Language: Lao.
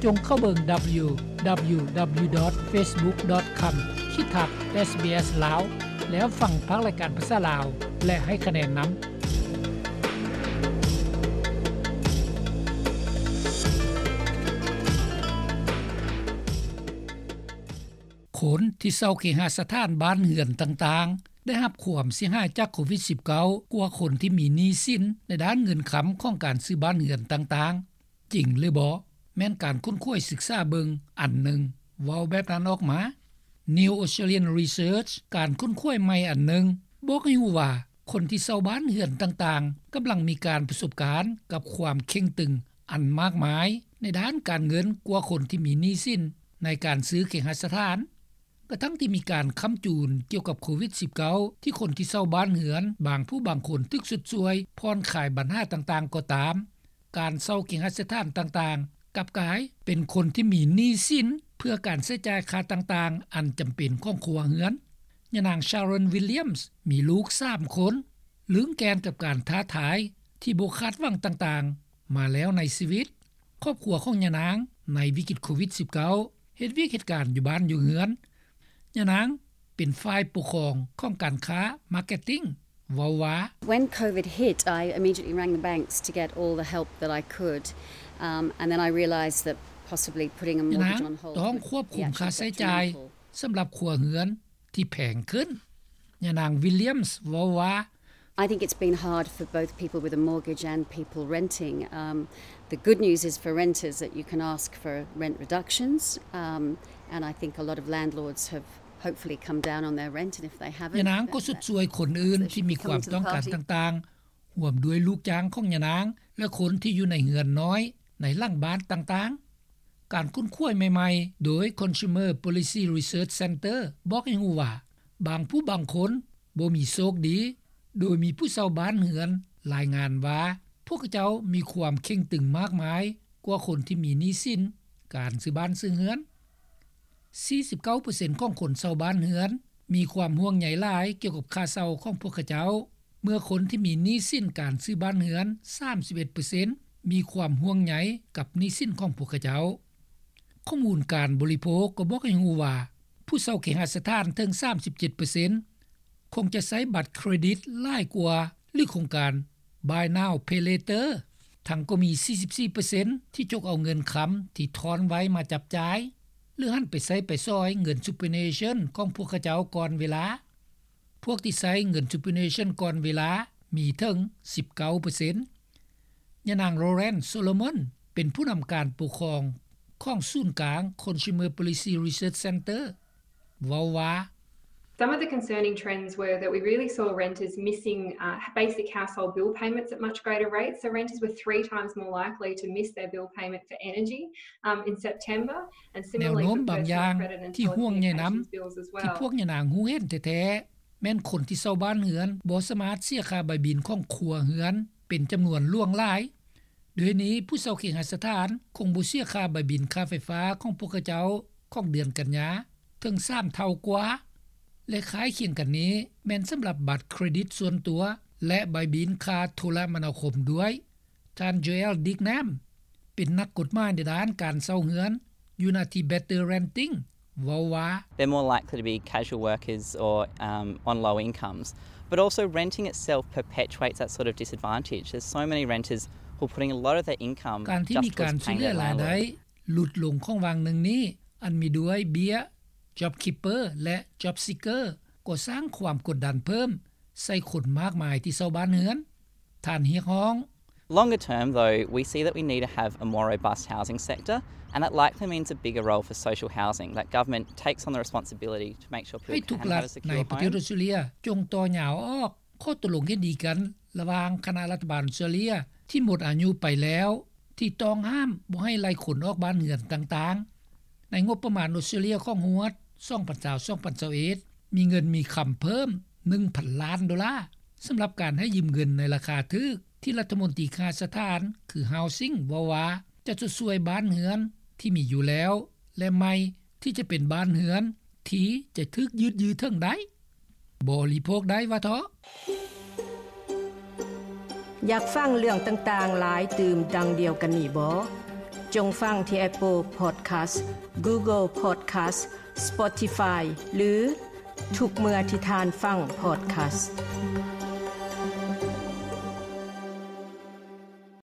ຈົ່ງເຂົ້າເບິ່ງ ດັບເບິນຢູ ດັບເບິນຢູ ດັບເບິນຢູ ດອດ ເຟສບຸກ ດອດ ຄອມ ຂີດທັບ ເອສບີເອສ ລາວ ແລ້ວຟັງພາກລາຍການພາສາລາວ ແລະ ໃຫ້ຄະແນນນຳ. ຄົນທີ່ເຊົ່າເຄຫະສະຖານບ້ານເຮືອນຕ່າງໆ ໄດ້ຮັບຄວາມເສຍຫາຍຈາກໂຄວິດສິບເກົ້າ ກວ່າຄົນທີ່ມີໜີ້ສິນໃນດ້ານເງິນຄຳຂອງການຊື້ບ້ານເຮືອນຕ່າງໆ. ຈິງຫຼືບໍ່? ແມ່ນການຄົ້ນຄວ້າສຶກສາເບິ່ງອັນໜຶ່ງເວົ້າແບບນັ້ນອອກມາ. New Australian Research ການຄົ້ນຄວ້າໃໝ່ອັນໜຶ່ງບອກໃຫ້ຮູ້ວ່າ ຄົນທີ່ເຊົ່າບ້ານເຮືອນຕ່າງໆ ກຳລັງມີການປະສົບການກັບຄວາມເຄັ່ງຕຶງອັນມາກມາຍໃນດ້ານການເງິນກວ່າຄົນທີ່ມີໜີ້ສິນໃນການຊື້ເຄຫະສະຖານ. ກະທັ່ງທີ່ມີການຄ້ຳຈູນກ່ຽວກັບໂຄວິດສິບເກົ້າ ທີ່ຄົນທີ່ເຊົ່າບ້ານເຮືອນບາງຜູ້ບາງຄົນຖືກຊົດຊ່ວຍຜ່ອນຄາຍບັນຫາຕ່າງໆກໍຕາມ, ການເຊົ່າເຄຫະສະຖານຕ່າງໆ ກັບກາຍເປັນຄົນທີ່ມີໜີ້ສິນເພື່ອການໃຊ້ຈ່າຍຄ່າຕ່າງໆອັນຈຳເປັນຂອງຄົວເຮືອນ. ຍານາງ Sharon Williams ມີລູກສາມຄົນ, ລຶ້ງແກ່ນກັບການທ້າທາຍທີ່ບໍ່ຄາດຫວັງຕ່າງໆມາແລ້ວໃນຊີວິດ. ຄອບຄົວຂອງຍານາງໃນວິກິດໂຄວິດສິບເກົ້າ ເຮັດວຽກເຮັດການຢູ່ບ້ານຢູ່ເຮືອນ. ຍານາງເປັນຝ່າຍປົກຄອງຂອງການຄ້າ Marketing ເວົ້າວ່າ When COVID hit, I immediately rang the banks to get all the help that I could, um, and then I realised that possibly putting a mortgage on hold would be actually detrimental. ຍານາງຕ້ອງຄວບຄຸມຄ່າໃຊ້ຈ່າຍສຳລັບຄົວເຮືອນທີ່ແພງຂຶ້ນ. ຍານາງ Williams ເວົ້າວ່າ I think it's been hard for both people with a mortgage and people renting. Um, the good news is for renters that you can ask for rent reductions, um, and I think a lot of landlords have hopefully come down on their rent, and if they haven't, ຍານາງກໍຊົດຊ່ວຍຄົນອື່ນທີ່ມີຄວາມຕ້ອງການຕ່າງໆ ຮ່ວມດ້ວຍລູກຈ້າງຂອງຍານາງ ແລະ ຄົນທີ່ຢູ່ໃນເຮືອນນ້ອຍໃນຫຼັງບ້ານຕ່າງໆ. ການຄົ້ນຄວ້າໃໝ່ໆໂດຍ Consumer Policy Research Centre ບອກໃຫ້ຮູ້ວ່າ ບາງຜູ້ບາງຄົນບໍ່ມີໂຊກດີ, ໂດຍມີຜູ້ເຊົ່າບ້ານເຮືອນລາຍງານວ່າ ພວກເຂົາເຈົ້າມີຄວາມເຄັ່ງຕຶງມາກມາຍກວ່າຄົນທີ່ມີໜີ້ສິນການຊື້ບ້ານຊື້ເຮືອນ. ສີ່ສິບເກົ້າເປີເຊັນຂອງຄົນເຊົ່າບ້ານເຮືອນມີຄວາມຫ່ວງໃຍຫຼາຍກ່ຽວກັບຄ່າເຊົ່າຂອງພວກເຂົາເຈົ້າ, ເມື່ອຄົນທີ່ມີໜີ້ສິນການຊື້ບ້ານເຮືອນ ສາມສິບເອັດເປີເຊັນ ມີຄວາມຫ່ວງໃຍກັບໜີ້ສິນຂອງພວກເຂົາເຈົ້າ. ຂໍ້ມູນການບໍລິໂພກກໍບອກໃຫ້ຮູ້ວ່າ ຜູ້ເຊົ່າເຄຫະສະຖານເຖິງ ສາມສິບເຈັດເປີເຊັນ ຄົງຈະໃຊ້ບັດເຄຣດິດຫຼາຍກວ່າ ຫຼື ໂຄງການ Buy Now Pay Later, ທັງກໍມີ ສີ່ສິບສີ່ເປີເຊັນ ທີ່ຈົກເອົາເງິນຄຳທີ່ທ້ອນໄວ້ມາຈັບຈ່າຍ ຫຼື ຫັນໄປໃຊ້ໄປສອຍເງິນ Superannuation ຂອງພວກເຂົາເຈົ້າກ່ອນເວລາ. ພວກທີ່ໃຊ້ເງິນ Superannuation ກ່ອນເວລາມີເຖິງ ສິບເກົ້າເປີເຊັນ. ຍານາງ Lauren Solomon ເປັນຜູ້ນຳການປົກຄອງຂອງສູນກາງ Consumer Policy Research Centre ເວົ້າວ່າ Some of the concerning trends were that we really saw renters missing, uh, basic household bill payments at much greater rates. So renters were three times more likely to miss their bill payment for energy, um, in September, and similarly for personal credit and telecommunications bills as well. ແນວໂນ້ມບາງຢ່າງທີ່ຫ່ວງໃຍນຳ ທີ່ພວກຍານາງຮູ້ເຫັນແທ້ໆ ແມ່ນຄົນທີ່ເຊົ່າບ້ານເຮືອນບໍ່ສາມາດເສຍຄ່າໃບບິນຂອງຄົວເຮືອນເປັນຈຳນວນຫຼວງຫຼາຍ. ດ້ວຍນີ້ ຜູ້ເຊົ່າເຄຫະສະຖານຄົງບໍ່ເສຍຄ່າໃບບິນຄ່າໄຟຟ້າຂອງພວກເຂົາເຈົ້າຂອງເດືອນກັນຍາເຖິງສາມເທົ່າກວ່າ ແລະ ຄ້າຍຄຽງກັນນີ້ແມ່ນສຳລັບບັດເຄຣດິດສ່ວນຕົວ ແລະ ໃບບິນຄ່າໂທລະມະນາຄົມດ້ວຍ. ທ່ານ Joel Dignam ເປັນນັກກົດໝາຍໃນດ້ານການເຊົ່າເຮືອນຢູ່ນະທີ່ Better Renting ເວົ້າວ່າ They're more likely to be casual workers or, um, on low incomes, but also renting itself perpetuates that sort of disadvantage. There's so many renters who are putting a lot of their income just towards paying their landlord. ການທີ່ມີການຊຸດເຫຼືອລາຍໄດ້ຫຼຸດລົງຂອງຫວ່າງໜຶ່ງນີ້ ອັນມີດ້ວຍເບ້ຍ JobKeeper ແລະ JobSeeker ກໍສ້າງຄວາມກົດດັນເພີ່ມໃສ່ຄົນມາກມາຍທີ່ເຊົ່າບ້ານເຮືອນ. ທ່ານຮຽກຮ້ອງ Longer term, though, we see that we need to have a more robust housing sector, and that likely means a bigger role for social housing, that government takes on the responsibility to make sure people can have a secure home. ໃຫ້ທຸກລັດໃນປະເທດອອສເຕຣເລັຍຈົ່ງຕໍ່ຍາວອອກຂໍ້ຕົກລົງເຫັນດີກັນລະຫວ່າງຄະນະລັດຖະບານອອສເຕຣເລັຍທີ່ໝົດອາຍຸໄປແລ້ວ ທີ່ຕ້ອງຫ້າມບໍ່ໃຫ້ໄລ່ຄົນອອກບ້ານເຮືອນຕ່າງໆ. ໃນງົບປະມານອອສເຕຣເລັຍຂອງຮວດ ສອງພັນຊາວ ສອງພັນຊາວເອັດ ມີເງິນມີຄຳເພີ່ມ ໜຶ່ງພັນລ້ານໂດລາ ສຳລັບການໃຫ້ຢືມເງິນໃນລາຄາຖືກ ທີ່ລັດຖະມົນຕີເຄຫະສະຖານ ຄື Housing ເວົ້າວ່າ ຈະຊົດຊ່ວຍບ້ານເຮືອນທີ່ມີຢູ່ແລ້ວ ແລະ ໃໝ່ທີ່ຈະເປັນບ້ານເຮືອນທີ່ຈະຖືກຢືດຢື້ເຖິງໄດ້. ບໍລິໂພກໄດ້ວ່າເທາະ. ຢາກຟັງເລື່ອງຕ່າງໆຫຼາຍຕື່ມດັ່ງດຽວກັນນີ້ບໍ? ຈົ່ງຟັງທີ່ Apple Podcast, Google Podcast, Spotify ຫຼື ທຸກເມື່ອທີ່ທ່ານຟັງ podcast.